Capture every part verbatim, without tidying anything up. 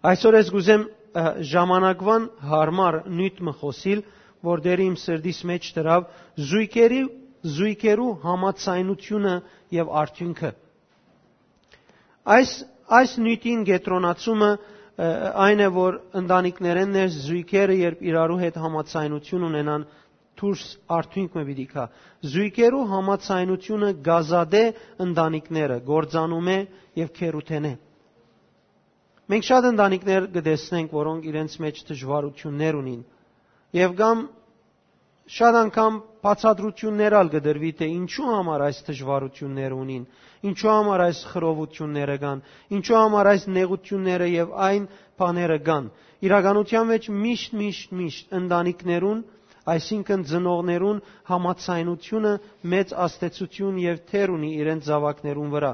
Այսօր ես կ'ուզեմ, ը, ժամանակուան յարմար նիւթ մը խօսիլ, որ դեռ իմ սրտիս մէջ դրաւ, զոյգերի, զոյգերու համաձայնութիւնը եւ արդիւնքը։ Այս, այս նիւթին կեդրոնացումը, ը, այն է, որ ընտանիքներէն ներս զոյգերը, երբ իրարու հետ համաձայնութիւն ունենան, դուրս արդիւնք մը պիտի գայ։ Զոյգերու համաձայնութիւնը կ'ազատէ ընտանիքները կործանումէ եւ գերութենէ։ Մենք շատ ընտանիքներ կը տեսնենք, որոնք իրենց մէջ դժուարութիւններ ունին, եւ կամ շատ անգամ բացատրութիւններ ալ կը տրուի, թէ ինչու համար այս դժուարութիւնները ունին, ինչու համար այս խռովութիւնները կան, ինչու համար այս նեղութիւնները եւ այն բաները կան։ Իրականութեան մէջ միշտ, միշտ, միշտ ընտանիքներուն, այսինքն ծնողներուն համաձայնութիւնը մեծ ազդեցութիւն եւ դեր ունի իրենց զաւակներուն վրայ։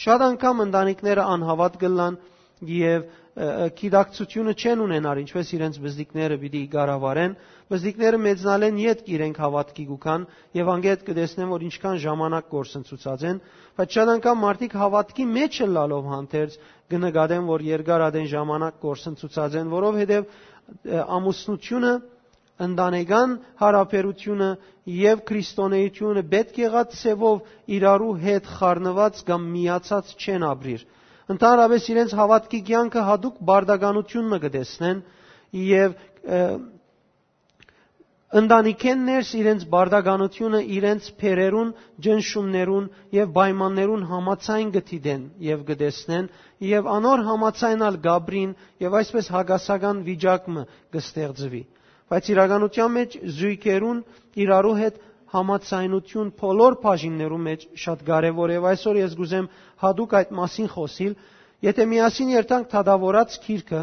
Շատ անգամ ընտանիքները անհաւատ կ'ըլլան եւ, ը, ը, գիտակցութիւնը չեն ունենար, ինչպէս իրենց բզդիկները պիտի կառավարեն։ Բզդիկները մեծնալէն ետք իրենք հաւատքի կու գան եւ անգետ կը տեսնեն, որ ինչքան ժամանակ կորսնցուցած են, բայց շատ անգամ մարդիկ հաւատքի մէջ ըլլալով հանդերձ կը նկատեն, որ երկար ատեն ժամանակ կորսնցուցած են, որովհետեւ, ը, ամուսնութիւնը, ընտանեկան յարաբերութիւնը եւ քրիստոնէութիւնը պէտք եղած ձեւով իրարու հետ խառնուած կամ միացած չեն ապրիր։ Ընդհանրապէս իրենց հաւատքի կեանքը յատուկ բարդականութիւն մը կը տեսնեն եւ, ը, ընտանիքէն ներս իրենց բարդականութիւնը իրենց բերերուն, ճնշումներուն եւ պայմաններուն համաձայն կը դիտեն եւ կը տեսնեն եւ անոր համաձայն ալ կ'ապրին եւ այսպէս հակասական վիճակ մը կը ստեղծուի։ Բայց իրականութեան մէջ զոյգերուն իրարու հետ համաձայնութիւն բոլոր բաժիններու մէջ շատ կարեւոր է եւ այսօր ես կ'ուզեմ յատուկ այդ մասին խօսիլ։ Եթե միասին երթանք Դատաւորաց գիրքը,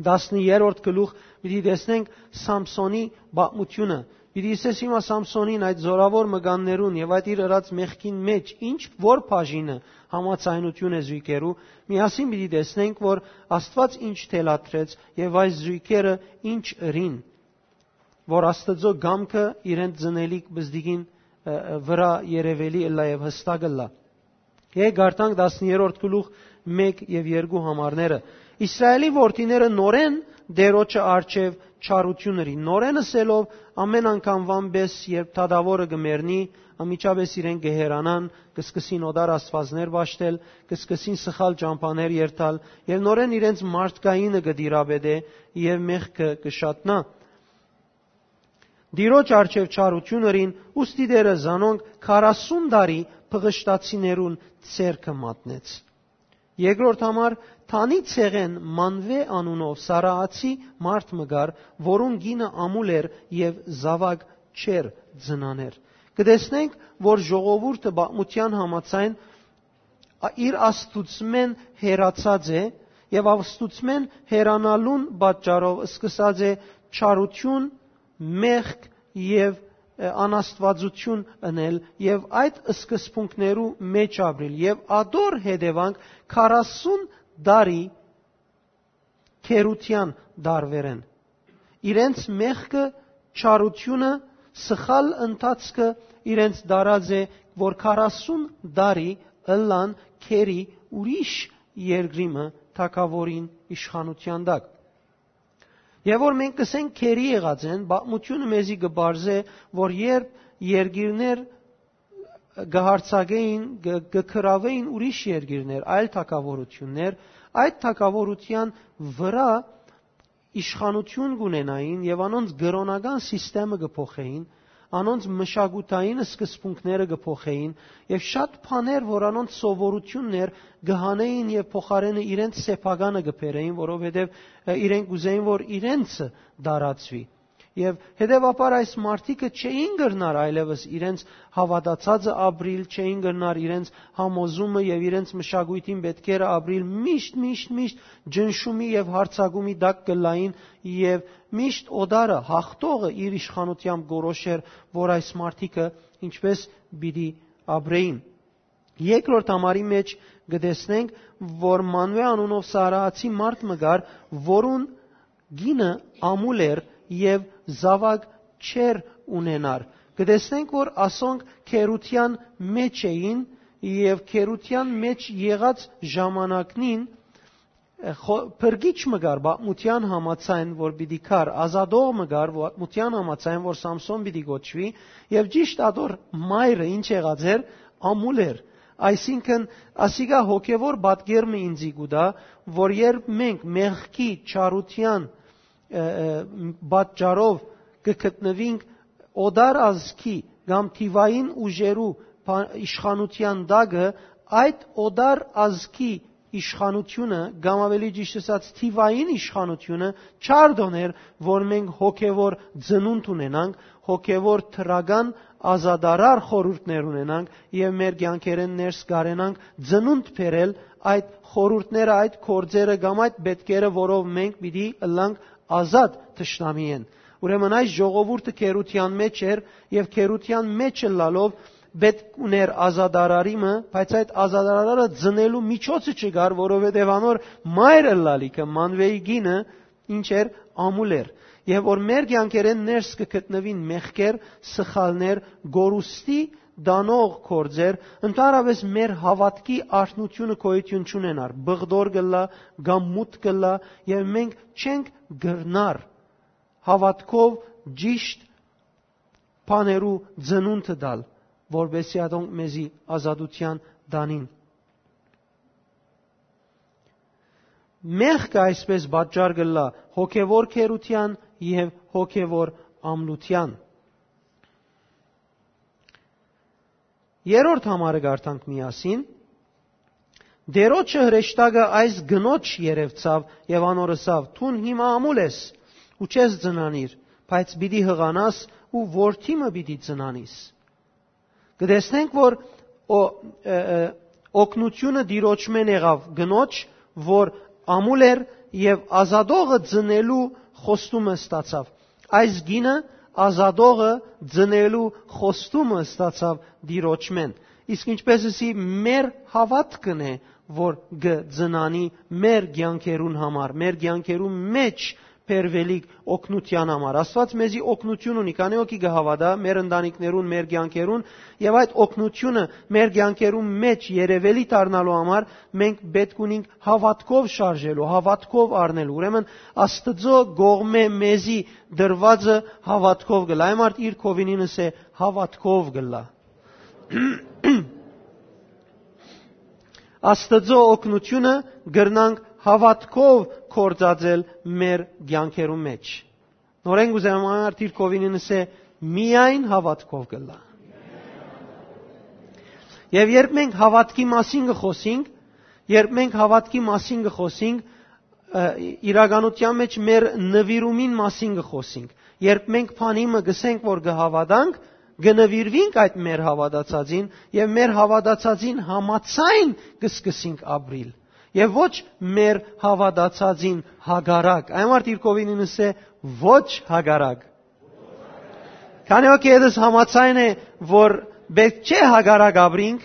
տասներորդ գլուխ, պիտի տեսնենք Սամսոնի պատմութիւնը։ Պիտի ըսես հիմա Սամսոնին, այդ զօրաւոր մկաններուն եւ այդ իր ըրած մեղքին մէջ ինչ որ բաժինը համաձայնութիւն է զոյգերու, միասին պիտի տեսնենք, որ Աստուած ինչ թելադրեց եւ այս զոյգերը ինչ ըրին, որ Աստուծոյ կամքը իրենց ծնելիք բզդիկին, ը, ը, վրայ երեւելի ըլլայ եւ յստակ ըլլայ։ Եկ կարդանք տասներորդ գլուխ մէկ եւ երկու համարները։ Իսրայէլի որդիները նորէն Տէրոջը առջեւ չարութիւն ըրին, նորէն ըսելով, ամէն անգամուան պէս, երբ դատաւորը կը մեռնի, անմիջապէս իրենք կը հեռանան, կը սկսին օտար աստուածներ պաշտել, կը սկսին սխալ ճամբաներ երթալ, եւ նորէն իրենց մարդկայինը կը տիրապետէ եւ մեղքը կը շատնայ։ Տիրոջ առջեւ չարութիւն ըրին, ուստի Տէրը զանոնք քառասուն տարի փղշտացիներուն ձեռքը մատնեց։ Երկրորդ համար, Թանի ցեղէն Մանուէ անունով Սարաացի մարդ մը կար, որուն կինը ամուլ էր եւ զաւակ չէր ծնաներ։ Կը տեսնենք, որ ժողովուրդը պատմութեան համաձայն ա-, իր Աստուծմէն հեռացած է եւ Աստուծմէն հեռանալուն պատճառով սկսած է չարութիւն, մեղք եւ, ը, անաստուածութիւն ընել եւ այդ սկզբունքներու մէջ ապրիլ եւ ատոր հետեւանք քառասուն տարի գերութեան տարուերեն։ Իրենց մեղքը, չարութիւնը, սխալ ընթացքը իրենց տարած է, որ քառասուն տարի ըլլան գերի ուրիշ երկրի մը թագաւորին իշխանութեան տակ։ Եւ որ մենք կսենք գերի եղած են, պատմութիւնը մեզի կը պարզէ, որ երբ երկիրներ կը յարձակէին, կը, կը գրաւէին ուրիշ երկիրներ, այլ թագաւորութիւններ, այդ թագաւորութեան վրայ իշխանութիւն կունենային եւ անոնց կրօնական սիստեմը կը փոխէին, անոնց մշակութային սկզբունքները կը փոխէին եւ շատ բաներ, որ անոնց սովորութիւնն էր, կը հանէին եւ փոխարէնը իրենց սեփականը կը բերէին, որովհետեւ, ը, իրենք կ'ուզէին, որ իրենցը տարածուի։ Եւ հետեւաբար այս մարդիկը չէին կրնար այլեւս իրենց հաւատացածը ապրիլ, չէին կրնար իրենց համոզումը եւ իրենց մշակոյթին պէտքերը ապրիլ, միշտ, միշտ, միշտ ջնշումի եւ յարձակումի տակ կ'ըլլային եւ միշտ օտարը, հաղթողը իր իշխանութեամբ կորոշեր, որ այս մարդիկը ինչպես պիտի ապրեին։ Երկրորդ համարի մէջ կը տեսնենք, որ Մանուէ անունով Սարաացի մարդ մը կար, որուն կինը ամուլ էր եւ զաւակ չէր ունենար։ Կը տեսնենք, որ ասոնք գերութեան մէջ էին եւ գերութեան մէջ եղած ժամանակնին Ը, խո-, փրկիչ մը կար պատմութեան համաձայն, որ պիտի գար, ազատող մը կար պատմութեան համաձայն, որ Սամսոն պիտի կոչուի, եւ ճիշդ ատոր մայրը ինչ եղած էր, ամուլ էր։ Այսինքն, ասիկա հոգեվոր պատկեր մը ինձի կու տայ, որ երբ մենք մեղքի, չարութեան, ը, ը, պատճառով կը գտնուինք օտար ազգի կամ թիվային ուժերու փա-, իշխանութեան տակը, այդ օտար ազգի իշխանութիւնը, կամ աւելի ճիշդ ըսած, թիվային իշխանութիւնը, չարդ օներ, որ մենք հոգեվոր ծնունդ ունենանք, հոգեվոր դրական ազատարար խորհուրդներ ունենանք եւ մեր կեանքերէն ներս կարենանք ծնունդ բերել այդ խորհուրդները, այդ գործերը կամ այդ պետքերը, որով մենք պիտի ըլլանք ազատ թշնամիէն։ Ուրեմն այս ժողովուրդը գերութեան մէջ էր եւ գերութեան մէջ ըլլալով պէտք ուներ ազատարարի մը, բայց այդ ազատարարը ծնելու միջոցը չկար, որովհետեւ անոր մայր ըլլալիքը, Մանուէի կինը, ինչ էր, ամուլ էր։ Եւ որ մեր կեանքերէն ներս կը գտնուին մեղքեր, սխալներ, գորուստի տանող գործեր, ընդհանրապէս մեր հաւատքի արթնութիւնը գոյութիւն չունենար, բղտոր կ'ըլլայ կամ մութ կ'ըլլայ, եւ մենք չենք կրնար հաւատքով ճիշտ բաներու ծնունդը տալ, որպէսզի ատոնք մեզի ազատութեան տանին։ Մեղքը այսպէս պատճառ կ'ըլլայ հոգեվոր գերութեան եւ հոգեվոր ամլութեան։ Երրորդ համարը կարդանք միասին։ Տէրոջը հրեշտակը այս կնոջ երեւցաւ եւ անոր ըսաւ. «Դուն հիմա ամուլ ես ու չես ծնանիր, բայց պիտի յղանաս ու որդի մը պիտի ծնանիս»։ Կը տեսնենք, որ օ-, ը, ը, օգնութիւնը Տիրոջմէն եղաւ կնոջ, որ ամուլ էր եւ ազատողը ծնելու խոստումը ստացաւ։ Այս կինը ազատողը ծնելու խոստումը ստացաւ Տիրոջմէն։ Իսկ ինչպէս ըսի, մեր հաւատքն է, որ կը ծնանի մեր կեանքերուն համար, մեր կեանքերուն մէջ բերուելիք օգնութեան համար։ Աստուած մեզի օգնութիւն ունի, քանի հոգի կը հաւատայ մեր ընտանիքներուն, մեր կեանքերուն, եւ այդ օգնութիւնը մեր կեանքերուն մէջ երեւելի դառնալու համար մենք պէտք ունինք հաւատքով շարժելու, հաւատքով առնելու։ Ուրեմն Աստուծոյ կողմէ մեզի տրուածը հաւատքով կ'ըլլայ։ Այն մարդ իր կովինին ըսէ, հաւատքով կ'ըլլայ։ Աստուծոյ օգնութիւնը կրնանք հաւատքով գործածել մեր կեանքերուն մէջ։ Նորէն կ'ուզեմ այն մարդ իր կովինին ըսէ, միայն հաւատքով կ'ըլլայ։ Եւ երբ մենք հաւատքի մասին կը խօսինք, երբ մենք հաւատքի մասին կը խօսինք, ը, իրականության մէջ մեր նուիրումին մասին կը խօսինք։ Երբ մենք բանի մը կ'ըսենք, որ կը հաւատանք, կը նուիրուինք այդ մեր հաւատացածին եւ մեր հաւատացածին համաձայն կը սկսենք ապրիլ։ Եւ ոչ մեր հաւատացածին հակառակ։ Այն մարդ իր կովինին ըսէ, ոչ հակառակ։ Քանի հոգի ետս համաձայն է, որ պէտք չէ հակառակ ապրինք,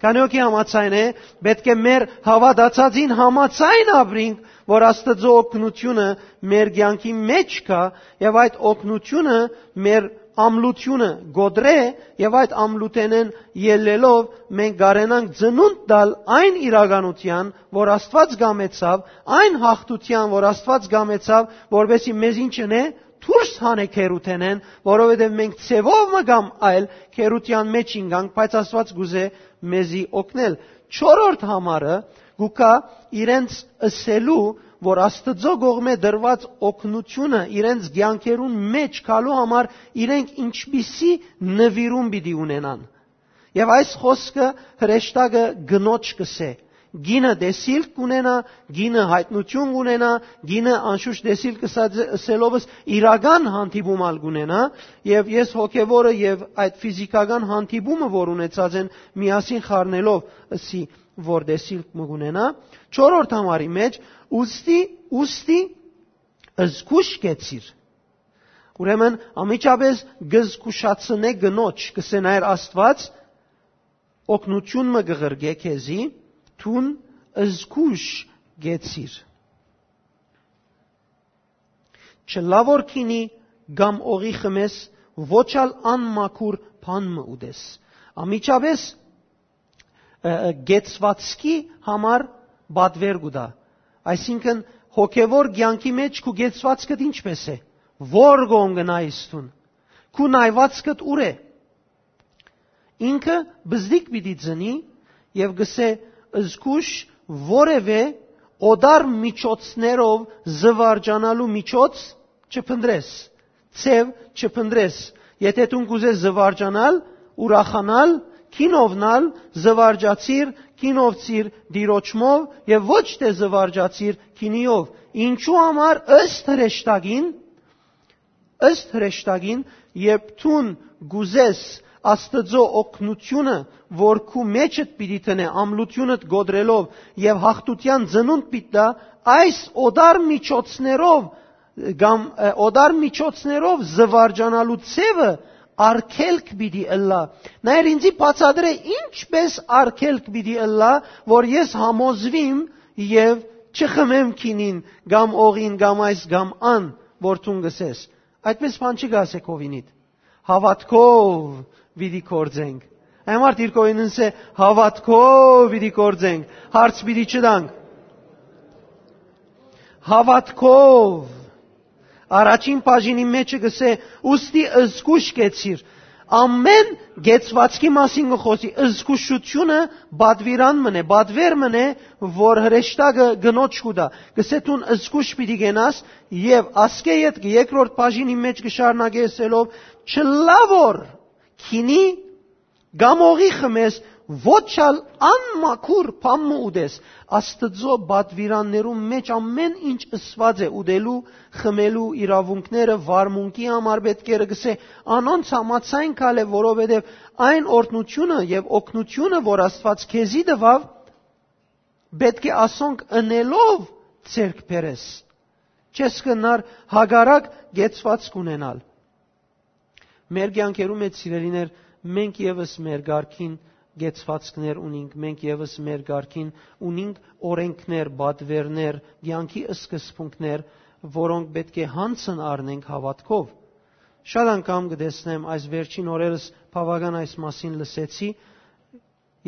քանի հոգի համաձայն է, պէտք է մեր հաւատացածին համաձայն ապրինք, որ Աստուծոյ օգնութիւնը մեր կեանքի մէջ կայ, եւ այդ օգնութիւնը մեր ամլութիւնը կոտրէ, եւ այդ ամլութենէն ելլելով մենք կարենանք ծնունդ տալ այն իրականութեան, որ Աստուած կամեցաւ, այն յաղթութեան, որ Աստուած կամեցաւ, որպէսզի մեզ ինչ ընէ, դուրս հանէ գերութենէն, որովհետեւ մենք ձեւով մը կամ այլ գերութեան մէջ ինկանք, բայց Աստուած կ'ուզէ մեզի օգնել։ Չորրորդ համարը կու գայ իրենց ըսելու, որ Աստուծոյ կողմէ տրուած օգնութիւնը իրենց կեանքերուն մէջ գալու համար իրենք ինչպիսի նուիրում պիտի ունենան։ Եւ այս խօսքը հրեշտակը կնոջ կ'ըսէ. «Կինը տեսիլք կ'ունենայ, կինը յայտնութիւն կ'ունենայ, կինը անշուշտ տեսիլք ըսած, ըսելովս իրական հանդիպում ալ կ'ունենայ, եւ ես հոգեվորը եւ այդ ֆիզիքական հանդիպումը, որ ունեցած են, միասին խառնելով ըսի, որ տեսիլք մը կ'ունենայ»։ Չորրորդ համարի մէջ, ուստի, ուստի զգուշ կեցիր։ Ուրեմն անմիջապէս կը զգուշացնէ կնոջ, կ'ըսէ նայր Աստուած, օգնութիւն մը կը ղրկէ քեզի, դուն զգուշ կեցիր։ Չլա որ քինի կամ օղի խմես, ոչ ալ անմաքուր բան մը ուտես։ Անմիջապէս, ը, ը, կեցվածքի համար պատվեր կու տայ։ Այսինքն, հոգեվոր կեանքի մեջ քու կեցուածքդ ինչպէս է, ո՞ր կողմ կը նայես դուն, քու նայուածքդ ո՞ւր է։ Ինքը բզդիկ պիտի ծնի եւ կ'ըսէ. «Զգուշ, որեւէ օտար միջոցներով զուարճանալու միջոց չփնտռես, ձեւ չփնտռես։ Եթէ դուն կ'ուզես զուարճանալ, ուրախանալ, գինովնալ, զուարճացիր, գինովցիր Տիրոջմով եւ ոչ թէ զուարճացիր գինիով։ Ինչու համար ըստ հրեշտակին, ըստ հրեշտակին, երբ դուն կ'ուզես Աստուծոյ օգնութիւնը, որ քու մեջդ պիտի դնէ, ամլութիւնդ կոտրելով եւ յաղթութեան ծնունդ պիտի տայ, այս օտար միջոցներով կամ, ը, օտար միջոցներով զուարճանալու ձեւը արգելք պիտի ըլլայ»։ Նայր, ինձի բացատրէ, ինչպէս արգելք պիտի ըլլայ, որ ես համոզուիմ եւ չխմեմ գինին կամ օղին կամ այս կամ ան, որ դուն կ'ըսես։ Այդպէս բան չի կ'ասէ քովինիդ։ Հաւատքով պիտի գործենք։ Այն համար դիրքովին ինձ է. «Հաւատքով պիտի գործենք, հարց պիտի չտանք»։ Հաւատքով։ Առաջին բաժինի մեջը կ'ըսէ. «Ուստի զգուշ կեցիր»։ Ամեն կեցուածքի մասին կը խօսի։ Զգուշութիւնը պատուիրան մըն է, պատուեր մըն է, որ հրեշտակը կնոջ կու տայ։ Կ'ըսէ. «Դուն զգուշ պիտի կենաս», եւ ասկէ ետքը երկրորդ բաժինի մեջ կը շարունակէ ըսելով. «Չլայ որ գինի կամ օղի խմես, ոչ ալ անմաքուր բան մը ուտես»։ Աստուծոյ պատուիրաններուն մեջ ամեն ինչ ըսուած է ուտելու, խմելու իրաւունքները վարմունքի համար պէտք է, կ'ըսէ, անոնց համաձայն գալը, որովհետեւ այն օրհնութիւնը եւ օգնութիւնը, որ Աստուած քեզի տուաւ, պէտք է ասոնք ընելով ձեռք բերես։ Չես կրնար հակառակ կեցուածք ունենալ։ Մեր կեանքերու մեջ, սիրելիներ, մենք եւս մեր կարգին կեցուածքներ ունինք, մենք եւս մեր կարգին ունինք օրենքներ, պատուերներ, կեանքի սկզբունքներ, որոնք պէտք է յանցն առնենք հաւատքով։ Շատ անգամ կը տեսնեմ, այս վերջին օրերս բաւական այս մասին լսեցի,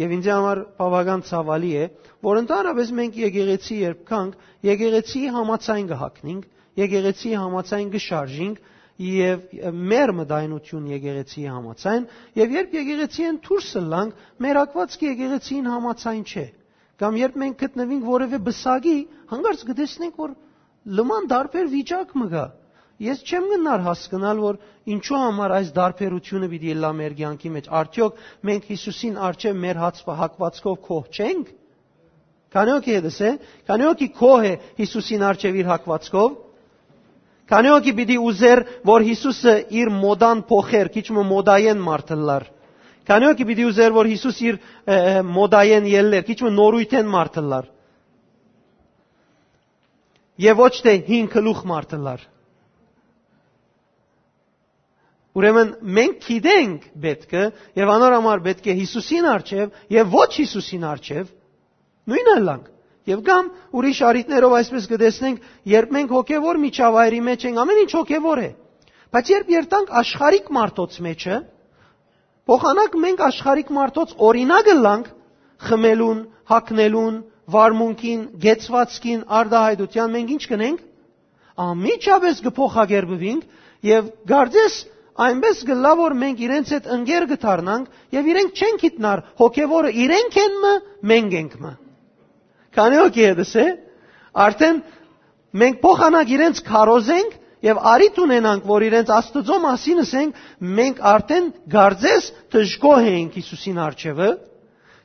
եւ ինձի համար բաւական ցաւալի է, որ ընդհանրապես մենք եկեղեցի երբ գանք, եկեղեցիի համաձայն կը հագնենք, եկեղեցիի համաձայն կը շարժենք, եւ մեր մտայնություն եկեղեցիի համաձայն, եւ երբ եկեղեցիէն դուրս ըլլանք, մեր հագուածքը եկեղեցիին համաձայն չէ։ Կամ երբ մենք գտնուինք որեւէ պսակի, հանկարծ կը տեսնենք, որ լման տարբեր վիճակ մը կայ։ Ես չեմ կրնար հասկնալ, որ ինչու համար այս տարբերութիւնը պիտի ըլլայ մեր կեանքի մեջ։ Արդեօք մենք Յիսուսին առջեւ մեր հաց-, հագուածքով գոհ չե՞նք։ Քանի՞ օքի հետս է, քանի՞ օքի գոհ է Յիսուսին առջեւ իր հագուածքով։ Քանի՞ օքի պիտի ուզեր, որ Յիսուսը իր մոդան փոխեր, քիչ մը մոդայեն մարդ ըլլար։ Քանի՞ օքի պիտի ուզեր, որ Յիսուս իր, ը, ը, մոդայեն ելլեր, քիչ մը նորույթեն մարդ ըլլար։ Եւ ոչ թէ հին գլուխ մարդ ըլլար։ Ուրեմն մենք գիտենք պէտքը, եւ անոր համար պէտք է Յիսուսին առջեւ եւ ոչ Յիսուսին առջեւ նոյնը ըլլանք։ Եւ կամ ուրիշ առիթներով այսպես կը տեսնենք, երբ մենք հոգեվոր միջավայրի մեջ ենք, ամեն ինչ հոգեվոր է։ Բայց երբ երթանք աշխարհիկ մարդոց մեջը, փոխանակ մենք աշխարհիկ մարդոց օրինակ ըլլանք խմելուն, հագնելուն, վարմունքին, կեցվածքին, արտահայտութեան, մենք ինչ կ'ընենք։ Անմիջապէս կը փոխակերպուինք եւ կարծես այնպես կ'ըլլայ, որ մենք իրենց հետ ընկեր կը դառնանք եւ իրենք չեն գիտնար հոգեվորը իրենք են մը, մենք ենք մը։ Քանի՞ օքի հետս է, արդեն մենք փոխանակ իրենց քարոզենք եւ առիթ ունենանք, որ իրենց Աստուծոյ մասին ըսենք, մենք արդեն կարծես դժգոհ էինք Յիսուսին առջեւը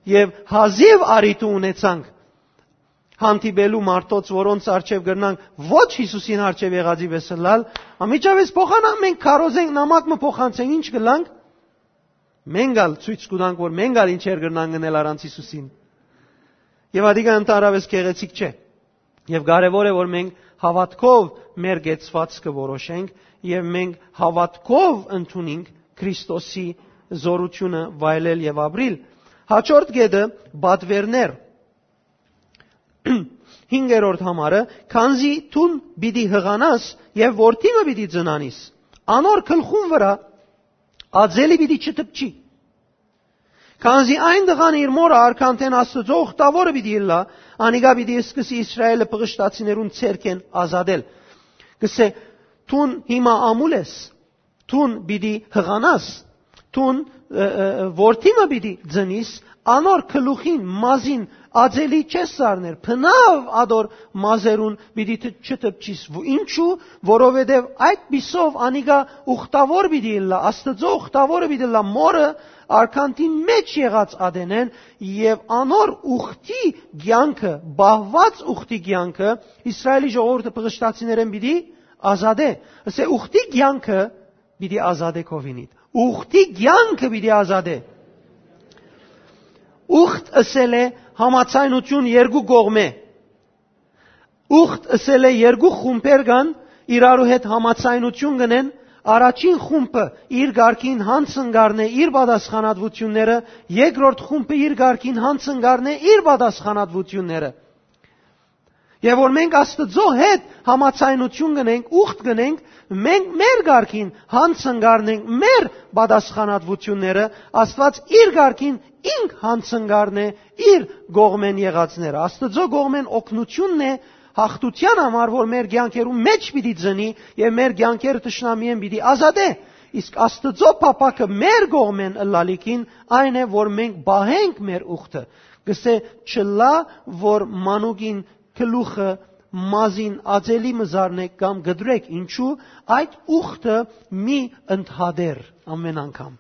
եւ հազիւ առիթը ունեցանք հանդիպելու մարդոց, որոնց առջեւ կրնանք ոչ Յիսուսին առջեւ եղածի պէս ըլլալ, անմիջապէս փոխանակ մենք քարոզենք, նամակ մը փոխանցենք, ինչ կ'ըլլանք, մենք ալ ցոյց կու տանք, որ մենք ալ ինչեր կրնանք ընել առանց Յիսուսին։ Եւ ատիկա ընդհանրապես գեղեցիկ չէ։ Եւ կարեւոր է, որ մենք հաւատքով մեր կեցվածքը որոշենք եւ մենք հաւատքով ընդունենք Քրիստոսի զորությունը վայելել եւ ապրիլ։ Հաջորդ կետը՝ պատվերներ։ Հինգերորդ համարը. «Քանզի դուն պիտի յղանաս եւ որդի մը պիտի ծնանիս, անոր գլխուն վրայ ածելի պիտի չդպչի»։ Քանզի այն տղան իր մօրը արքանտէն Աստուծոյ ուխտաւորը պիտի ըլլայ, անիկա պիտի սկսի Իսրայէլը պղշտացիներուն ձեռքէն ազատել։ Կսէ, դուն հիմա ամուլ ես, դուն պիտի յղանաս, դուն, ը, ը, ը, որդի մը պիտի ծնիս, անոր գլուխին, մազին ածելի չես սառներ, բնաւ ադոր մազերուն պիտի տ-, չտպչիս։ Ու ինչու, որովհետեւ այդ պիսով անիկա ուխտաւոր պիտի ըլլայ, Աստուծոյ ուխտաւորը պիտի ըլլայ, մօրը արքանտին մէջ եղած ատենէն, եւ անոր ուխտի կեանքը, պահուած ուխտի կեանքը, Իսրայէլի ժողովուրդը պղշտացիներէն պիտի ազատէ։ Ասէ, ուխտի կեանքը պիտի ազատէ քովինիդ։ Ուխտի կեանքը պիտի ազատէ։ Ուխտ ըսել է համաձայնություն երկու կողմէ։ Ուխտ ըսել է երկու խումբեր կան, իրարու հետ համաձայնություն կ'ընեն, առաջին խումբը իր կարգին յանձն կ'առնէ իր պատասխանատվութիւնները, երկրորդ խումբը իր կարգին յանձն կ'առնէ իր պատասխանատվութիւնները։ Եւ որ մենք Աստուծոյ հետ համաձայնություն կ'ընենք, ուխտ կ'ընենք, մենք մեր կարգին յանձն կ'առնենք մեր պատասխանատվութիւնները, Աստուած իր կարգին ինք յանձն կ'առնէ իր կողմէն եղածները։ Աստուծոյ կողմէն օգնութիւնն է յաղթութեան համար, որ մեր կեանքերուն մէջ պիտի ծնի եւ մեր կեանքերը թշնամիէն պիտի ազատէ։ Իսկ Աստուծոյ փափաքը մեր կողմէն ըլլալիքին այն է, որ մենք պահենք մեր ուխտը։ Կսէ, չըլլայ, որ մանուկին գլուխը մազին ածելի մը զարնէք կամ կտրեք, ինչու, այդ ուխտը մի ընդհատեր ամեն անգամ։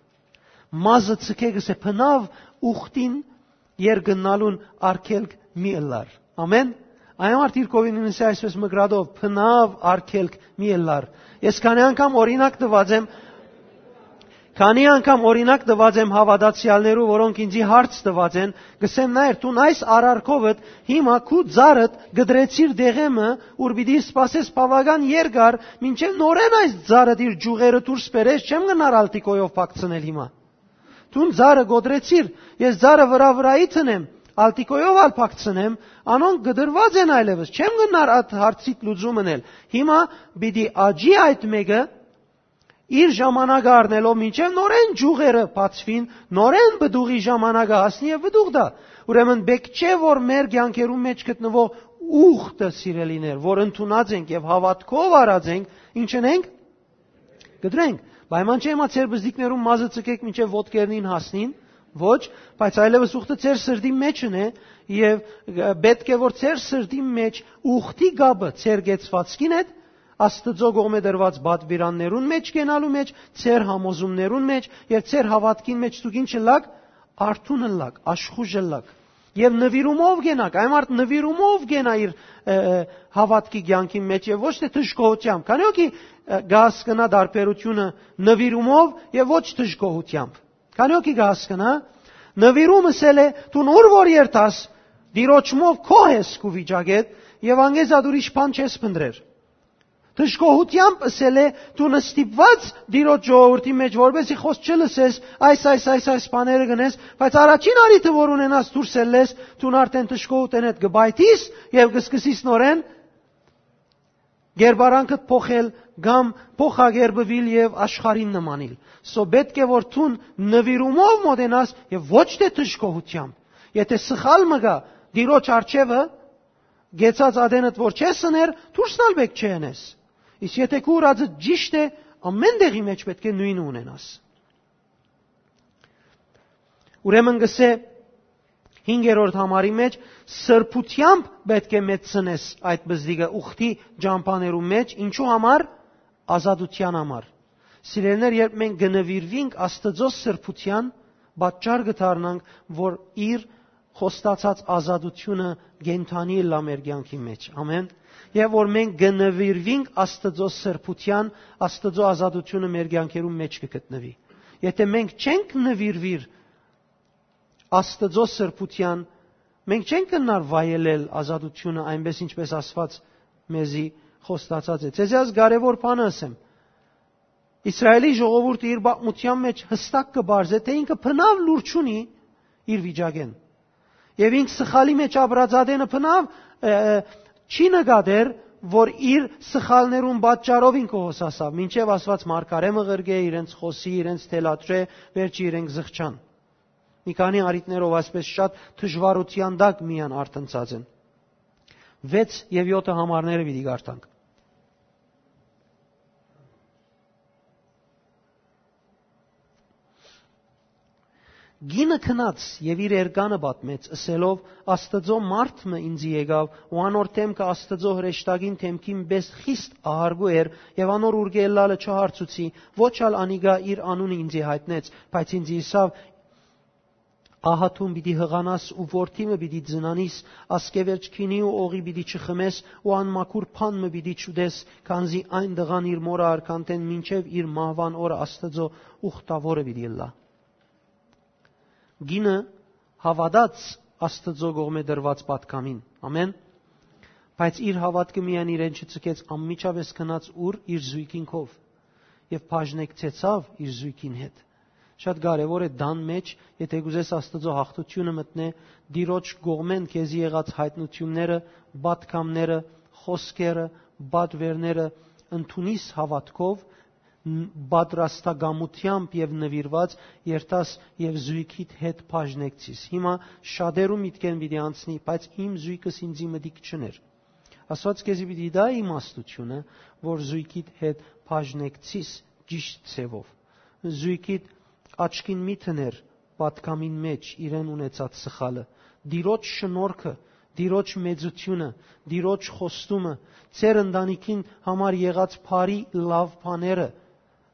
Մազը ցկէ, կսէ, բնաւ ուխտին երկնալուն արգելք մի ըլլար։ Ամեն։ Այն համար դիրքովին ինսի այսպես մկրատով, բնաւ արգելք մի ըլլար։ Ես քանի անգամ օրինակ տված եմ, քանի անգամ օրինակ տված եմ հաւատացեալներու, որոնք ինձի հարց տված են, կսեմ նայր, դուն այս արարքովդ հիմա քու ծառդ կտրեցիր դեղեմը, ուր պիտի սպասես բաւական երկար, մինչեւ նորեն այս ծառդ իր ջուղերը դուրս բերես, չեմ գնար ալտիկոյով փակցնել հիմա։ Դուն ծառը կոտրեցիր, ես ծառը վրայ վրայի տնեմ, ալտիկոյով ալ փակցնեմ, անոնք կտրուած են այլևս, չեմ գնար այդ հարցիդ լուծում ընել։ Հիմա պիտի աճի այդ մեկը, իր ժամանակը առնելով, մինչեւ նորեն ջուղերը բացուին, նորեն պտուղի ժամանակը հասնի եւ պտուղ տայ։ Ուրեմն պէտք չէ, որ մեր կեանքերուն մէջ գտնուող ուխտը, սիրելիներ, որ ընդունած ենք եւ հաւատքով առած ենք, ինչ ընենք, կտրենք։ Պայման չէ, հիմա ձեր բզդիկներուն մազը ցկեք մինչեւ ոտքերնին հասնին, ոչ, բայց այլեւս ուխտը ձեր սրտին մէջ ընէ եւ, ը, պէտք է, որ ձեր սրտին մէջ ուխտի կապը ձեր կեցվածքին հետ, Աստուծոյ կողմէ տրուած պատուիրաններուն մէջ կենալու մէջ, ձեր համոզումներուն մէջ եւ ձեր հաւատքին մէջ դուք ինչ ըլլաք, արթուն ըլլաք, աշխուժ ըլլաք։ Եւ նուիրումով կենաք, այն մարդ նուիրումով կենայ իր, ը, ը, հաւատքի կեանքին մէջ եւ ոչ թէ դժգոհութեամբ։ Քանի՞ հոգի, ը, կհասկնայ տարբերութիւնը նուիրումով եւ ոչ դժգոհութեամբ։ Քանի՞ հոգի կհասկնայ, նուիրում ըսել է, դուն ուր որ երթաս, Տիրոջմով գոհ ես քու վիճակէդ եւ անգեզատ ուրիշ բան չես փնտռեր։ Դժգոհութեամբ ըսել է, դու նստիպված Տիրոջ ժողովրդի մէջ, որպեսզի խոսք չլսես, այս, այս, այս, այս բաները գնես, բայց առաջին առիթը, որ ունենաս դուրս ելլես, դու արդեն դժգոհութենէդ կը պայթիս եւ կսկսիս նորեն կերպարանքդ փոխել կամ փոխակերպուիլ եւ աշխարհին նմանիլ։ So պէտք է, որ դուն նուիրումով մոտենաս եւ ոչ թէ դժգոհութեամբ։ Եթե սխալ մը գայ Տիրոջ առջեւը, գեցած ատենդ որ չես ըներ, դուրս ալ պէտք չէ ընես։ Իսկ եթե քու ուրածը ճիշտ է, ամեն տեղի մէջ պէտք է նոյնը ունենաս։ Ուրեմն կսէ հինգերորդ համարի մէջ, սրբութեամբ պէտք է մեծցնես այդ բզդիկը ուխտի ճամբաներու մէջ, ինչու համար, ազատութեան համար։ Սիրելիներ, երբ մենք կը նուիրվինք Աստուծոյ սրբութեան, պատճառ կը դառնանք, որ իր խոստացած ազատութիւնը կենդանի ըլլայ մեր կեանքի մէջ։ Ամեն։ Եւ որ մենք կը նուիրվինք Աստուծոյ սրբութեան, Աստուծոյ ազատութիւնը մեր կեանքերուն մէջ կը գտնուի։ Եթե մենք չենք նուիրվիր Աստուծոյ սրբութեան, մենք չենք կրնար վայելել ազատութիւնը այնպես, ինչպես Աստուած մեզի խոստացած է։ Ձեզի այս կարեւոր բանը ըսեմ։ Իսրայէլի ժողովուրդը իր պատմութեան մէջ յստակ կը պարզէ, թէ ինքը բնաւ լուր չունի իր վիճակէն։ Եւ ինք սխալի մէջ ապրած ատենը բնաւ, ը, ը, չի նկատեր, որ իր սխալներուն պատճառով ինքը հոսասաւ, մինչեւ Աստուած մարգարէ մը ղրկէ, իրենց խօսի, իրենց թելադրէ, վերջը իրենք զղջան։ Մի քանի առիթներով այսպես շատ դժուարութեան տակ միան արթնցած են։ Վեց եւ յոթը համարները պիտի կարդանք։ Կինը գնաց եւ իր էրկանը պատմեց, ըսելով. «Աստուծոյ մարդ մը ինծի եկաւ ու անոր դէմքը Աստուծոյ հրեշտակին դէմքին պէս խիստ ահարգու էր եւ անոր ուրկէ ելլալը չհարցուցի, ոչ ալ անիկա իր անունը ինծի յայտնեց, բայց ինծի ըսաւ. "Ահա դուն պիտի յղանաս ու որդի մը պիտի ծնանիս, ասկեվերջ գինի ու օղի պիտի չխմես ու անմաքուր բան մը պիտի չուտես, քանզի այն տղան իր մօրը արքանտէն մինչեւ իր մահուան օրը Աստուծոյ ուխտաւորը պիտի ըլլայ"»։ Կինը հաւատաց Աստուծոյ կողմէ տրուած պատգամին։ Ամեն։ Բայց իր հաւատքը միայն իրեն չցկեց, անմիջապէս գնաց ուր իր զոյգին քով եւ բաժնեկցեցաւ իր զոյգին հետ։ Շատ կարեւոր է տան մէջ, եթե կ'ուզես Աստուծոյ յաղթութիւնը մտնէ, Տիրոջ կողմէն քեզի եղած յայտնութիւնները, պատգամները, խօսքերը, պատուէրները ընդունիս հաւատքով, ն-, պատրաստակամութեամբ եւ նուիրուած երթաս եւ զոյգիդ հետ բաժնեկցիս։ Հիմա շատերու միտքէն պիտի անցնի, բայց իմ զոյգս ինծի մտիկ չուներ։ Աստուած քեզի պիտի տայ իմաստութիւնը, որ զոյգիդ հետ բաժնեկցիս ճիշդ ձեւով։ Զոյգիդ աչքին մի դներ պատգամին մէջ իրեն ունեցած սխալը, Տիրոջ շնորհքը, Տիրոջ մեծութիւնը, Տիրոջ խոստումը, ձեր ընտանիքին համար եղած բարի լաւ բաները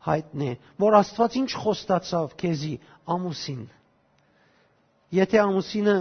յայտնէ, որ Աստուած ինչ խոստացաւ քեզի, ամուսին։ Եթէ ամուսինը,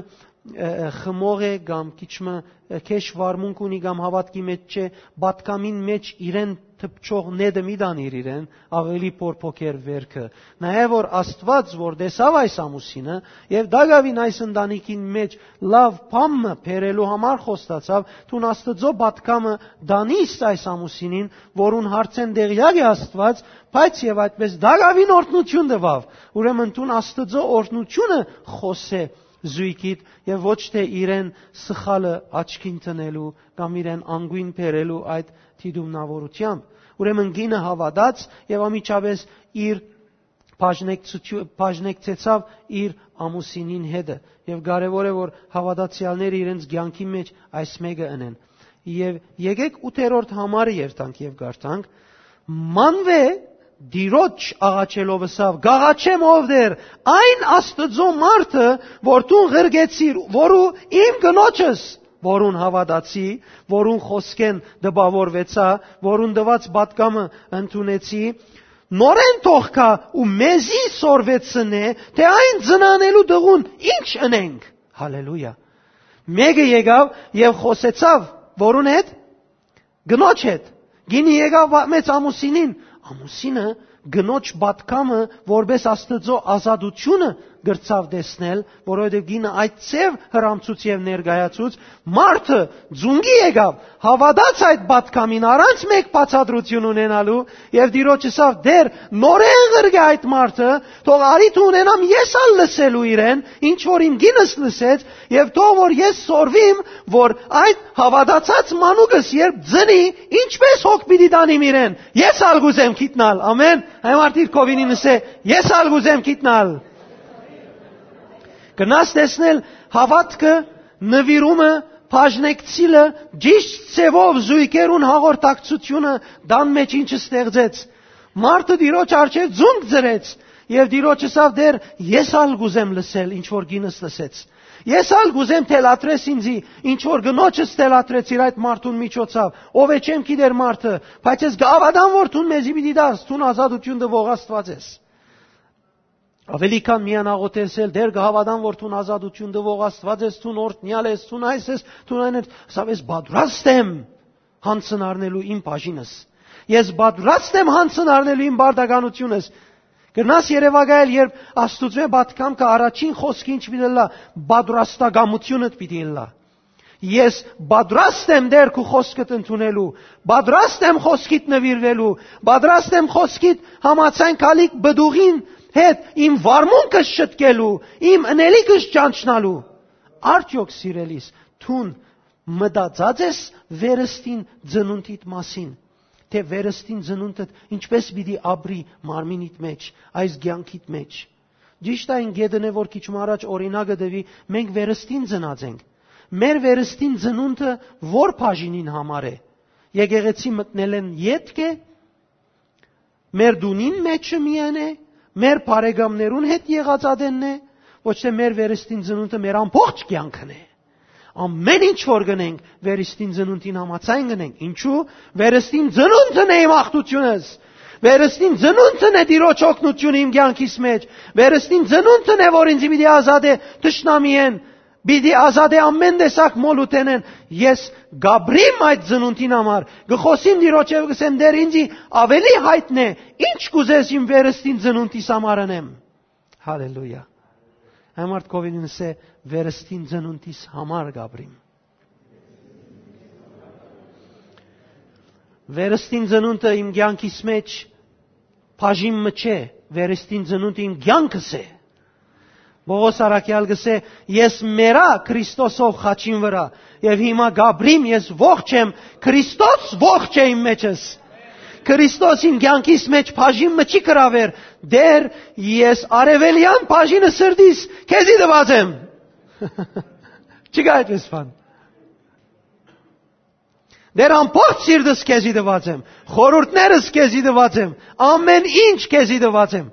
ը, ը, խմող է կամ քիչ մը, ը, քեշ վարմունք ունի կամ հաւատքի մէջ չէ, պատգամին մէջ իրեն թփչող նետը մի տանիր իրեն, աւելի փոփոխեր վերքը։ Նայէ, որ Աստուած, որ տեսաւ այս ամուսինը եւ տակաւին այս ընտանիքին մէջ լաւ բան մը բերելու համար խոստացաւ, դուն Աստուծոյ պատգամը տանիս այս ամուսինին, որուն հարցէն տեղեակ է Աստուած, բայց եւ այդպես տակաւին օրհնութիւն տուաւ։ Ուրեմն դուն Աստուծոյ օրհնութիւնը խօսէ զոյգիդ եւ ոչ թէ իրեն սխալը աչքին դնելու կամ իրեն անգոյն բերելու այդ դիտումնավորութեամբ։ Ուրեմն կինը հաւատաց եւ անմիջապէս իր բաժնեկցութիու-, բաժնեկցեցաւ իր ամուսինին հետը։ Եւ կարեւոր է, որ հաւատացեալները իրենց կեանքի մէջ այս մէկը ընեն։ Եւ եկեք ութերորդ համարը երթանք եւ կարդանք. «Մանուէ Տիրոջ աղաչելով ըսաւ. "Կ'աղաչեմ, ով Տէր, այն Աստուծոյ մարդը, որ դուն ղրկեցիր, որու իմ կնոջս, որուն հաւատացի, որուն խօսքէն տպաւորուեցայ, որուն տուած պատգամը ընդունեցի, նորէն թող գայ ու մեզի սորվեցնէ, թէ այն ծնանելու տղուն ինչ ընենք"։ Հալելույա։ Մէկը եկաւ եւ խօսեցաւ որուն հետ, կնոջ հետ։ Գինը եկաւ, պատմեց ամուսինին։ Ամուսինը կնոջ պատգամը որպէս Աստուծոյ ազատութիւնը կրցաւ տեսնել, որովհետեւ գինը այդ ձեւ հրամցուց եւ ներկայացուց, մարդը ծունկի եկաւ, հաւատաց այդ պատգամին առանց մէկ բացատրութիւն ունենալու եւ Տիրոջ ըսաւ. "Տէր, նորէն ղրկէ այդ մարդը, թող առիթ ունենամ ես ալ լսելու իրեն, ինչ որ իմ գինս լսեց, եւ թող որ ես սորվիմ, որ այդ հաւատացած մանուկս երբ ծնի, ինչպես հոգ պիտի տանիմ իրեն, ես ալ կ'ուզեմ գիտնալ"։ Ամեն։ Այն մարդիկ քովինին ըսէ. "Ես ալ կ'ուզեմ գիտնալ"։ Կնաս տեսնել հաւատքը, նուիրումը, բաժնեկցիլը, ճիշտ ձեւով զոյգերուն հաղորդակցութիւնը տան մէջ ինչ ստեղծեց։ Մարդը Տիրոջ առջեւ ծունկ ծրեց եւ Տիրոջ ըսաւ. "Տէր, ես ալ կ'ուզեմ լսել, ինչ որ գինս լսեց։ Ես ալ կ'ուզեմ թելադրես ինձի, ինչ որ կնոջս թելադրեցիր այդ մարդուն միջոցով, ով է չեմ գիտեր մարդը, բայց ես կհաւատամ, որ դուն մեզի պիտի տաս, դուն ազատութիւն տուող Աստուած ես"։ Աւելի քան միան աղոթել, Տէր, կհաւատամ, որ դուն ազատութիւն տուող Աստուած ես, դուն օրհնեալ ես, դուն այս ես, դուն այն ես, ըսաւ. "Ես պատրաստ եմ յանցն առնելու իմ բաժինս։ Ես պատրաստ եմ յանցն առնելու իմ պարտականությունս"։ Կրնաս երեւակայել, երբ Աստուծոյ պատգամքը առաջին խօսքը ինչ պիտի ըլլայ, պատրաստակամութիւնդ պիտի ըլլայ։ "Ես պատրաստ եմ, Տէր, քու խօսքդ ընդունելու, պատրաստ եմ խօսքիդ նուիրվելու, պատրաստ եմ խօսքիդ համաձայն գալիք պտուղին հետ իմ վարմունքս շտկելու, իմ ընելիքս ճանչնալու"։ Արդյոք, սիրելիս, դուն մտածած ես վերստին ծնունդիդ մասին, թէ վերստին ծնունդդ ինչպես պիտի ապրի մարմինիդ մեջ, այս կեանքիդ մեջ։ Ճիշդ այն գետն է, որ քիչ մը առաջ օրինակը տուի, մենք վերստին ծնած ենք։ Մեր վերստին ծնունդը ո՞ր բաժինին համար է։ Եկեղեցի մտնելէն ետք է, մեր տունին մէջը միայն է, մեր բարեկամներուն հետ եղած ատենն է, ոչ թէ մեր վերստին ծնունդը մեր ամբողջ կեանքն է։ Ամեն ինչ որ կ'ընենք, վերստին ծնունդին համաձայն կ'ընենք։ Ինչու՞։ Վերստին ծնունդն է իմ աղթութիւնս։ Վերստին ծնունդն է Տիրոջ օգնութիւնը իմ կեանքիս մէջ։ Վերստին ծնունդն է, որ ինձ պիտի ազատէ թշնամիէն, պիտի ազատէ ամեն տեսակ մոլութենէն։ Ես կ'ապրիմ այդ ծնունդին համար, կը խօսիմ Տիրոջ եւ կ'ըսեմ. «Տէր, ինձի աւելի յայտնէ, ինչ կ'ուզես իմ վերստին ծնունդիս համար ընեմ»։ Հալելույա։ Այն մարդ կ'ովին ինսէ. «Վերստին ծնունդիս համար կ'ապրիմ»։ Վերստին ծնունդը իմ կեանքիս մէջ բաժին մը չէ, վերստին ծնունդը իմ կեանքս է։ Պողոս առաքեալ կ'ըսէ. «Ես մեռայ Քրիստոսով խաչին վրայ, եւ հիմա կ'ապրիմ, ես ողջ եմ, Քրիստոս ողջ է իմ մեջս»։ Քրիստոս իմ կեանքիս մէջ բաժին մը չի կրաւեր. «Տէր, ես արեւելեան բաժինը սրտիս քեզի տուած եմ»։ Չկա այդպես բան։ «Տէր, ամբողջ սիրտս քեզի տուած եմ, խորհուրդներս քեզի տուած եմ, ամեն ինչ քեզի տուած եմ»։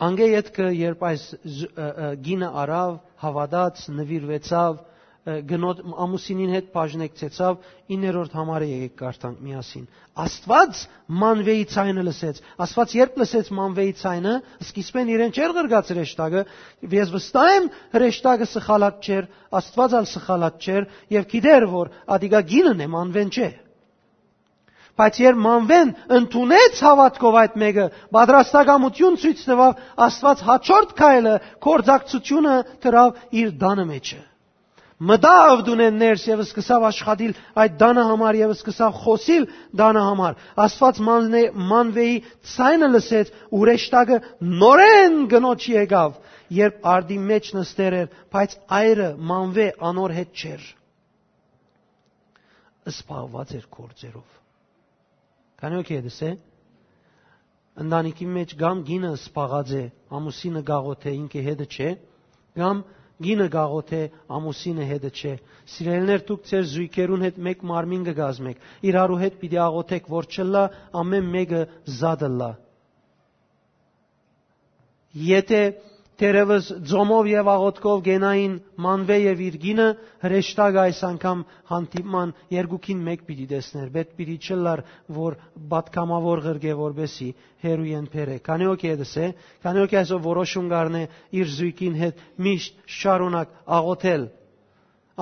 Անկէ ետքը, երբ այս զ-, ը, ը, կինը առաւ, հաւատաց, նուիրուեցաւ, ը, գնոջ, ամուսինին հետ բաժնեկցեցաւ, իններորդ համարը եկեք կարդանք միասին։ Աստուած Մանվեի ձայնը լսեց։ Աստուած երբ լսեց Մանվեի ձայնը, սկիզբէն իրեն չէր ղրկած հրեշտակը, ես վստահ եմ, հրեշտակը սխալած չէր, Աստուած ալ սխալած չէր, եւ գիտեր, որ ատիկա կինն է, Մանվեն չէ։ Բայց երբ Մանվեն ընդունեց հաւատքով այդ մէկը, պատրաստակամութիւն ցոյց տուաւ, Աստուած հաջորդ քայլը, գործակցութիւնը դրաւ իր տանը մէջը։ Մտաւ տունէն ներս եւ սկսաւ աշխատիլ այդ տանը համար եւ սկսաւ խօսիլ տանը համար։ Աստուած Մաննե-, Մանվեի ձայնը լսեց, հրեշտակը նորէն կնոջ եկաւ, երբ արտի մէջ նստեր էր, բայց այրը Մանվե անոր հետ չէր, զբաղված էր գործերով։ Քանի՞ օքեյ է դսե։ Ընտանիքի մէջ կամ կինը զբաղած է, ամուսինը գաղութ է, ինքը հետը չէ, կամ կինը գաղութ է, ամուսինը հետը չէ։ Սիրելիներ, դուք ձեր զոյգերուն հետ մէկ մարմին կը կազմեք, իրարու հետ պիտի աղոթեք, որ չըլլայ ամեն մէկը զատ ըլլայ։ Եթէ թերեւս ծոմով եւ աղոթքով կենային Մանվէ եւ իր կինը, հրեշտակը այս անգամ հանդիպման երկուքին մէկ պիտի տեսնէր, պէտք պիտի չըլլար, որ պատգամաւոր ղրկէ, որպէսզի հեռու են բերէ։ Քանի՞ օքեյ է դսե, քանի՞ օքեյ այսօր որոշում կ'առնէ իր զոյգին հետ միշտ շարունակ աղոթել։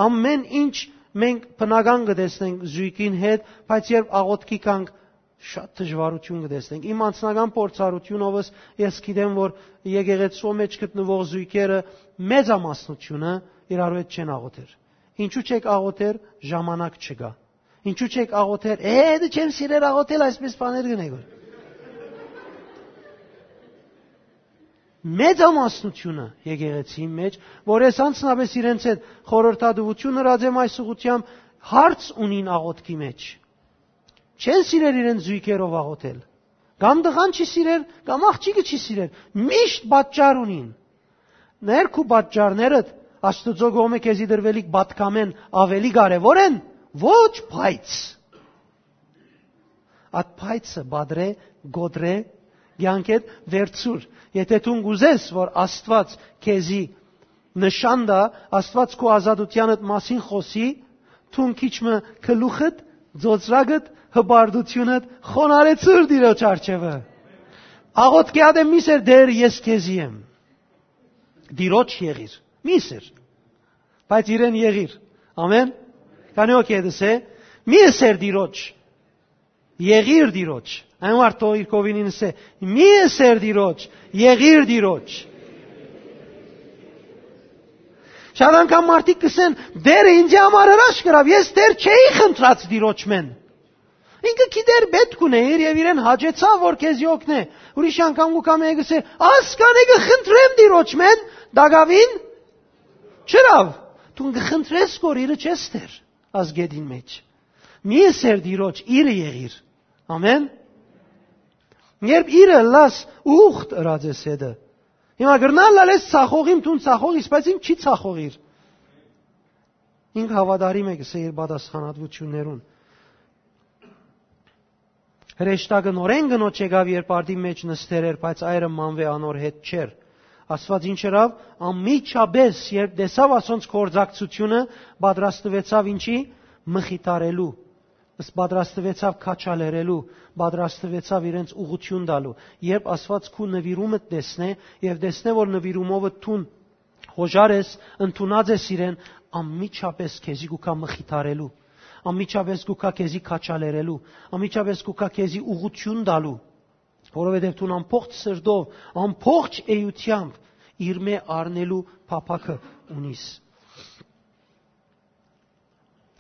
Ամեն ինչ մենք բնական կը տեսնենք զոյգին հետ, բայց երբ աղոթքի գանք, շատ դժուարութիւն կը տեսնենք։ Իմ անձնական փորձառութիւնովս ես գիտեմ, որ եկեղեցւոյ մէջ գտնուող զոյգերը մեծամասնութիւնը իրարու հետ չեն աղոթեր։ Ինչու՞ չէք աղոթեր, ժամանակ չկայ։ Ինչու՞ չէք աղոթեր, է, դե չեմ սիրեր աղոթել, այսպես բաներ կ'ընէք որ։ Մեծամասնութիւնը եկեղեցիի մէջ, որ ես անձնապէս իրենց հետ խորհրդատուութիւն ըրած եմ այս ուղղութեամբ, հարց ունին աղոթքի մէջ։ Չեն սիրեր իրենց զոյգերով աղոթել։ Կամ տղան չի սիրեր, կամ աղջիկը չի սիրեր։ Միշտ պատճառ ունին։ Ներքու պատճառներդ Աստուծոյ կողմէ քեզի տրուելիք պատգամէն աւելի կարեւոր են, ոչ, բայց։ Այդ փայցը պատրէ, կոտրէ, կեանքէդ վերցուր։ Եթէ դուն կ'ուզես, որ Աստուած քեզի նշան տայ, Աստուած քու ազատութեանդ մասին խօսի, դուն քիչ մը գլուխդ, ծոծրակդ, հպարտութիւնդ խոնարհեցուր Տիրոջ առջեւը։ Աղոթքի ատեն մի սեր, Տէր, ես քեզի եմ։ Տիրոջ եղիր։ Մի սեր։ Բայց իրեն եղիր։ Ամեն։ Քանի՞ օքեյ է դսե, մի սեր Տիրոջ։ Եղիր Տիրոջ։ Այն մարդը իր կողմին ինսէ, մի սեր Տիրոջ, եղիր Տիրոջ։ Շատ անգամ մարդիկ կ'ըսեն, Տէրը ինձի համար հրաշք կրաւ, ես Տէր չէի խնդրած Տիրոջմէն։ Ինքը գիտեր, պէտք ունէ իր եւ իրեն հաճեցաւ, որ քեզի օգնէ։ Ուրիշ անգամ կու կամի կ'ըսէ, Ասկան է, կը խնդրեմ Տիրոջմէն, տակաւին չըրաւ։ Դուն կը խնդրես, որ իրը չես Տէր, ազգեդին մէջ։ Մի սեր Տիրոջ, իրը եղիր։ Ամեն։ Երբ իրը լաս ուխտ ըրած ես հետը, հիմա գրնալ լալես ցախողիմ, դուն ցախող իս, բայց իմ չի ցախողիր։ Ինք հաւատարիմ է, կսե իր պատասխանատվութիւններուն։ Հրեշտակը նորէն կնոջ եկաւ, երբ արդի մէջ նստեր էր, բայց այրը Մանվէ անոր հետ չէր։ Աստուած ինչ ըրաւ, անմիջապէս, երբ տեսաւ ասոնց գործակցութիւնը, պատրաստուեցաւ ինչի, մխիթարելու, ս-, պատրաստուեցաւ քաչալերելու, պատրաստուեցաւ իրենց ուղղութիւն տալու։ Երբ Աստուած քու նուիրումդ տեսնէ եւ տեսնէ, որ նուիրումովը դուն հոժար ես, ընդունած ես իրեն, անմիջապէս քեզի կու գայ մխիթարելու, անմիջապէս կու գայ քեզի քաչալերելու, անմիջապէս կու գայ քեզի ուղղութիւն տալու, որովհետեւ դուն ամբողջ սրտով, ամբողջ էութեամբ իրմէ առնելու փափաքը ունիս։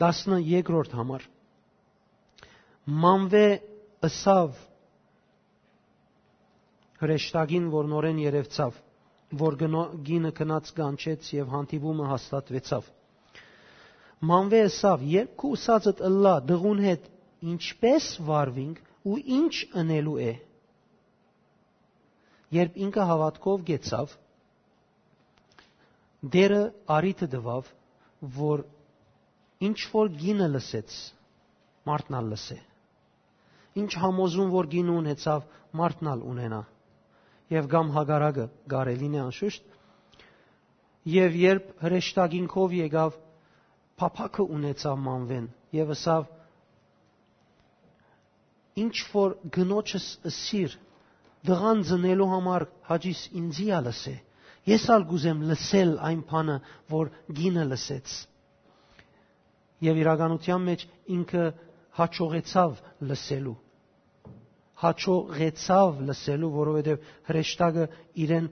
Տասներկրորդ համար։ Մանվէ ըսաւ հրեշտակին, որ նորէն երեւցաւ, որ գնո-, կինը գնաց կանչեց եւ հանդիպումը հաստատուեցաւ։ Մանվէ ըսաւ. «Երբ քու ըսածդ ըլլայ, տղուն հետ ինչպէ՞ս վարուինք ու ի՞նչ ընելու է»։ Երբ ինքը հաւատքով գեցաւ, Տէրը առիթը տուաւ, որ ինչ որ կինը լսեց, մարդն ալ լսէ։ Ինչ համոզում որ կինը ունեցաւ, մարդն ալ ունենայ։ Եւ կամ հակառակը կարելին է անշուշտ։ Եւ երբ հրեշտակին քով եկաւ, փափաքը ունեցաւ Մանվէն եւ ըսաւ. «Ինչ որ կնոջս ըսիր, տղան ծնելու համար հաճիս ինծի ալ ըսէ։ Ես ալ կ'ուզեմ լսել այն բանը, որ կինը լսեց»։ Եւ իրականության մէջ ինքը հաջողեցաւ լսելու։ Հաջողեցաւ լսելու, որովհետեւ հրեշտակը իրեն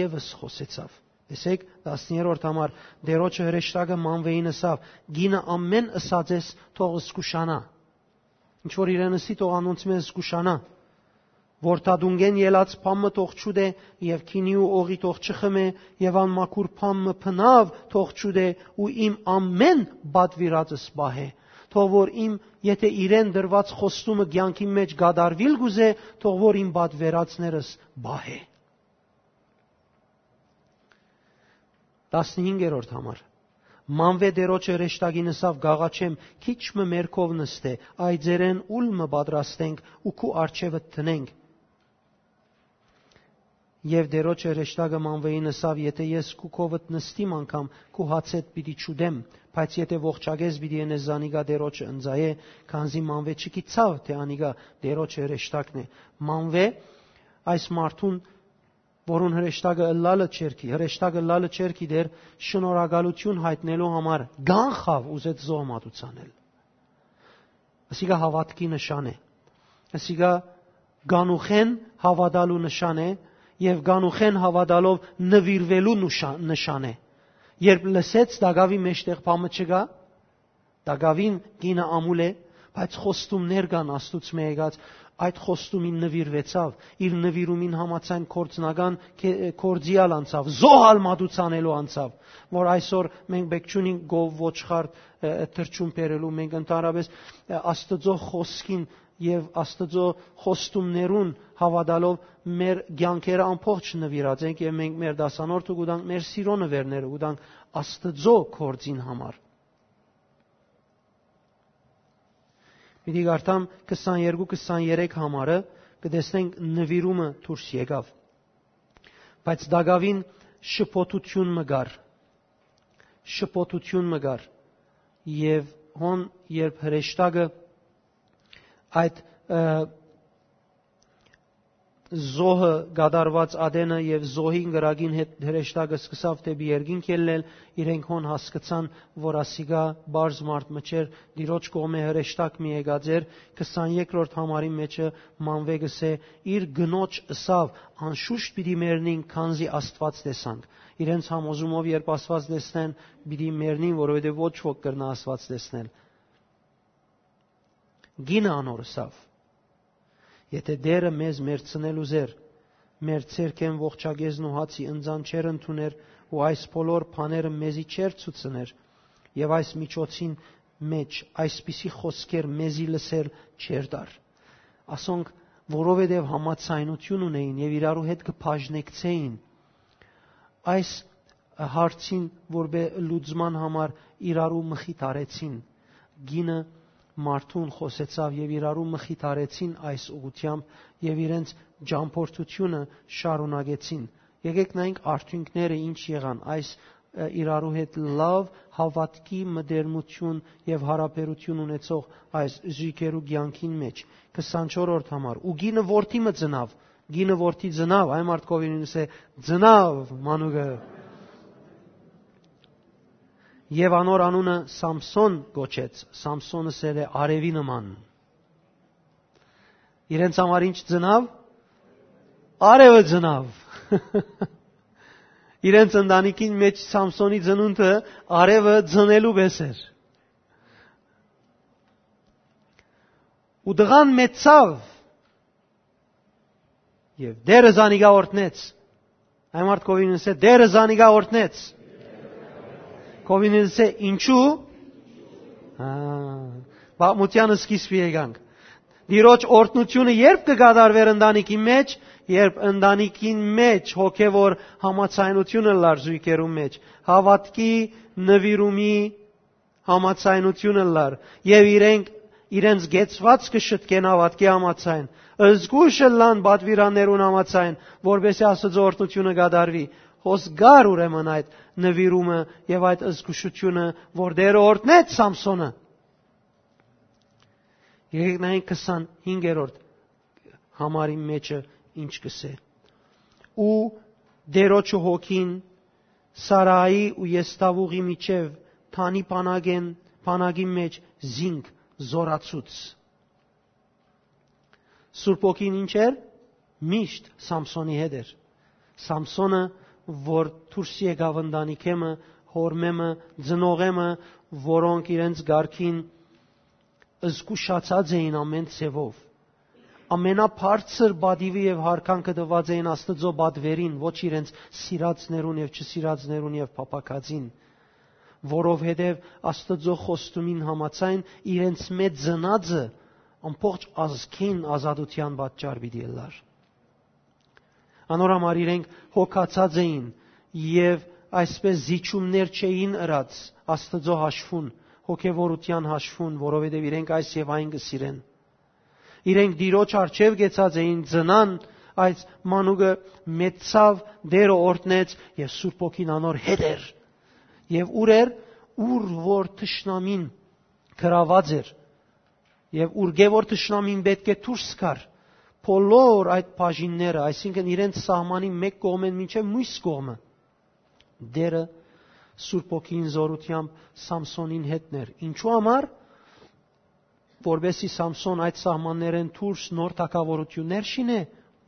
եւս խօսեցաւ։ Տեսեք, տասներորդ համար, Տէրոջը հրեշտակը Մանվէին ըսաւ. «Կինը ամէն ըսած ես, թող զգուշանայ։ Ինչ որ իրեն ըսի, թող անոնցմէ զգուշանայ։ Որդատունկէն ելած բան մը թող չուտէ եւ գինի ու օղի թող չխմէ եւ անմաքուր բան մը բնաւ թող չուտէ ու իմ ամէն պատուիրածս պահէ։ Թող որ իմ, եթե իրեն տրուած խոստումը կեանքի մէջ կատարուիլ կ'ուզէ, թող որ իմ պատուիրածներս պահէ»։ Տասնհինգերորդ համար։ Մանվէ Տէրոջը հրեշտակին ըսաւ. «Կ'աղաչեմ, քիչ մը մեր քով նստէ, այծերէն ուլ մը պատրաստենք ու քու առջեւդ դնենք»։ Եւ Տէրոջը հրեշտակը Մանվէին ըսաւ. «Եթէ ես քու քովդ նստիմ անգամ, քու հացէդ պիտի չուտեմ, բայց եթէ ողջակէս պիտի ընես, զանիկա Տէրոջը ընծայէ, քանզի Մանվէ չգիտցաւ թէ անիկա Տէրոջը հրեշտակն է»։ Մանվէ այս մարդուն, որուն հրեշտակը ըլլալը չէր գի-, հրեշտակը ըլլալը չէր գիտեր, շնորհակալութիւն յայտնելու համար կանխաւ ուզեց զոհ մատուցանել։ Ասիկա հաւատքի նշան է։ Ասիկա կանուխէն հաւատալու նշան է եւ կանուխէն հաւատալով նուիրուելու նուշա-, նշան է։ Երբ լսեց տակաւի մէջտեղ բան մը չկայ, տակաւին կինը ամուլ է, բայց խոստումներ կան Աստուծմէ եկած, այդ խոստումին նուիրուեցաւ, իր նուիրումին համաձայն գործնական կե-, գործի ալ անցաւ, զոհ ալ մատուցանելու անցաւ, որ այսօր մենք պէք չունենք գով ոչխար, ը, ը, թռչուն բերելու, մենք ընդհանրապես, ը, Աստուծոյ խօսքին եւ Աստուծոյ խոստումներուն հաւատալով մեր կեանքերը ամբողջ նուիրած ենք եւ մենք մեր դասանորդը կու տանք, մեր սիրո նուերները կու տանք Աստուծոյ գործին համար։ Պիտի կարդամ քսաներկու քսաներեք համարը, կը տեսնենք նուիրումը դուրս եկաւ։ Բայց տակաւին շփոթութիւն մը կար։ Շփոթութիւն մը կար։ Եւ հոն, երբ հրեշտակը այդ, ը, զոհը կատարուած ատենը եւ զոհին կրակին հետ հրեշտակը սկսաւ դէպի երկինք ելլել, իրենք հոն հասկցան, որ ասիկա պարզ մարդ մը չէր, Տիրոջ կողմէ հրեշտակ մը եկած էր, քսաներկրորդ համարի մէջը Մանվէ կ'ըսէ. «Իր կնոջ ըսաւ. անշուշտ պիտի մեռնին, քանզի Աստուած տեսանք»։ Իրենց համոզումով, երբ Աստուած տեսնեն, պիտի մեռնին, որովհետեւ ոչ ոք կրնայ Աստուած տեսնել։ Կինը անոր ըսաւ. «Եթէ Տէրը մեզ մեռցնել ուզէր, մեր ձեռքէն ողջակեզն ու հացի ընծան չէր ընդուներ ու այս բոլոր բաները մեզի չէր ցուցներ, եւ այս միջոցին մէջ այսպիսի խօսքեր մեզի լսել չէր տար»։ Ասոնք որովհետեւ համաձայնություն ունէին եւ իրարու հետ կը բաժնեկցէին։ Այս հարցին որպէ լուծման համար իրարու մխիթարեցին։ Կինը մարդուն խօսեցաւ եւ իրարու մխիթարեցին այս ուղղութեամբ եւ իրենց ճամփորդությունը շարունակեցին։ Եկեք նայենք արդիւնքները ինչ եղան այս, ը, իրարու հետ լաւ հաւատքի մտերմություն եւ յարաբերություն ունեցող այս զոյգերու կեանքին մէջ։ Քսանչորրորդ համար։ Ու կինը որդի մը ծնաւ, կինը որդի ծնաւ, այն մարդկովին ինս է, ծնաւ մանուկը։ Եւ անոր անունը Սամսոն կոչեց։ Սամսոնը սեր է արեւի նման։ Իրենց համար ինչ ծնաւ։ Արևը ծնաւ։ Իրենց ընտանիքին մեջ Սամսոնի ծնունդը արևը ծնելու պես էր։ Ու տղան մեծցաւ եւ Տէրը զանիկա օրհնեց։ Այն մարդ կովին ասե, Տէրը զանիկա օրհնեց։ Կովին ասե, ինչու։ Հա, պատմութեան սկիզբի եկանք։ Տիրոջ օրհնությունը երբ կը կատարվեր ընտանիքի մեջ, երբ ընտանիքին մեջ հոգեվոր համաձայնությունը լար զույգերու մեջ, հաւատքի, նվիրումի համաձայնությունը լար, եւ իրենք իրենց գեցված կը շտկեն հաւատքի համաձայն, զգուշ ըլլան պատվիրաններուն համաձայն, որպեսզի Աստուծոյ օրհնությունը կատարուի։ Հոս գար ուրեմն այդ նվիրումը եւ այդ զգուշությունը, որ Տէրը օրհնեց Սամսոնը։ Եկեք նայենք քսանհինգերորդ համարի մեջը ինչ կսէ։ Ու Տէրոջը հոգին Սարայի ու Եսթաւուղի միջեւ Թանի բանակեն, բանակի մեջ զինք զորացուց։ Սուրբ ոգին ինչ էր։ Միշտ Սամսոնի հետ էր։ Սամսոնը, որ դուրս եկաւ ընտանիքեմը, հորմեմը, ծնողեմը, որոնք իրենց կարգին զգուշացած էին ամեն ձևով, ամենաբարձր պատիւը եւ յարգանքը տուած էին Աստուծոյ պատվերին, ոչ իրենց սիրածներուն եւ չսիրածներուն եւ փափաքածին, որովհետեւ Աստուծոյ խոստումին համաձայն իրենց մեջ ծնածը ամբողջ ազգին ազատութեան պատճառ պիտի ըլլար։ Անոր համար իրենք հոգացած էին եւ այսպես զիջումներ չէին ըրած Աստուծոյ հաշվուն, հոգեվորութեան հաշվուն, որովհետեւ իրենք այս եւ այն կը սիրեն։ Իրենք Տիրոջ առջեւ կեցած էին, ծնան, այս մանուկը մեծցաւ, Տէրը օրհնեց եւ Սուրբ Ոգին անոր հետ էր։ Եւ ուր էր, ուր որ թշնամին գրաված էր, եւ ուրկէ որ թշնամին պէտք է դուրս գար, բոլոր այդ բաժինները, այսինքն իրենց սահմանի մէկ կողմէն մինչեւ մյուս կողմը, Տէրը Սուրբ Ոգին զորութեամբ Սամսոնին հետն էր։ Ինչու համար, որպեսզի Սամսոն այդ սահմաններէն դուրս նոր թագաւորութիւններ շինէ,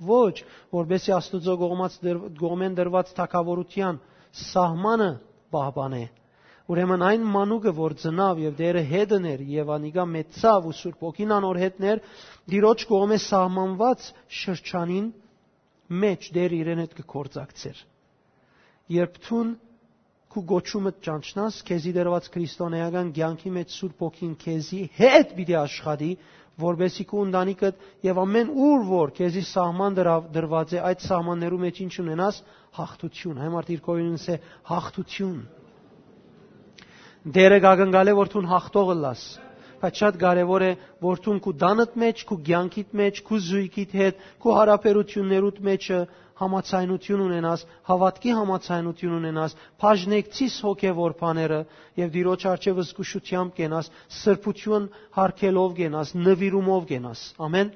ոչ, որպեսզի Աստուծոյ կողմած դր-, կողմէն դրուած թագաւորութեան սահմանը պահպանէ։ Ուրեմն այն մանուկը, որ ծնաւ եւ Տէրը հետն էր, եւ անիկա մեծցաւ ու Սուրբ Ոգին անոր հետն էր, Տիրոջ կողմէ սահմանուած շրջանին մէջ Տէրը իրեն հետ կը գործակցէր։ Երբ դուն քու կոչումը ճանչնաս, քեզի դրուած քրիստոնեական կեանքի մեջ Սուրբ Ոգին քեզի հետ պիտի աշխատի, որպեսզի քու ընտանիքդ եւ ամեն ուր որ քեզի սահման դրավ-, դրված է, այդ սահմաններու մեջ ինչ ունենաս, հաղթություն։ Այն մարդը իր կողմինս է հաղթություն։ Տէրը կակնկալէ, որ դուն հաղթող ըլլաս, բայց շատ կարեւոր է, որ դուն քու տանդ մեջ, քու կեանքիդ մեջ, քու զույգիդ հետ, քու յարաբերություններուդ մեջը համաձայնություն ունենաս, հաւատքի համաձայնություն ունենաս, բաժնեկցիս հոգեվոր բաները եւ Տիրոջ առջեւ զգուշութեամբ կենաս, սրբություն յարգելով կենաս, նվիրումով կենաս։ Ամեն։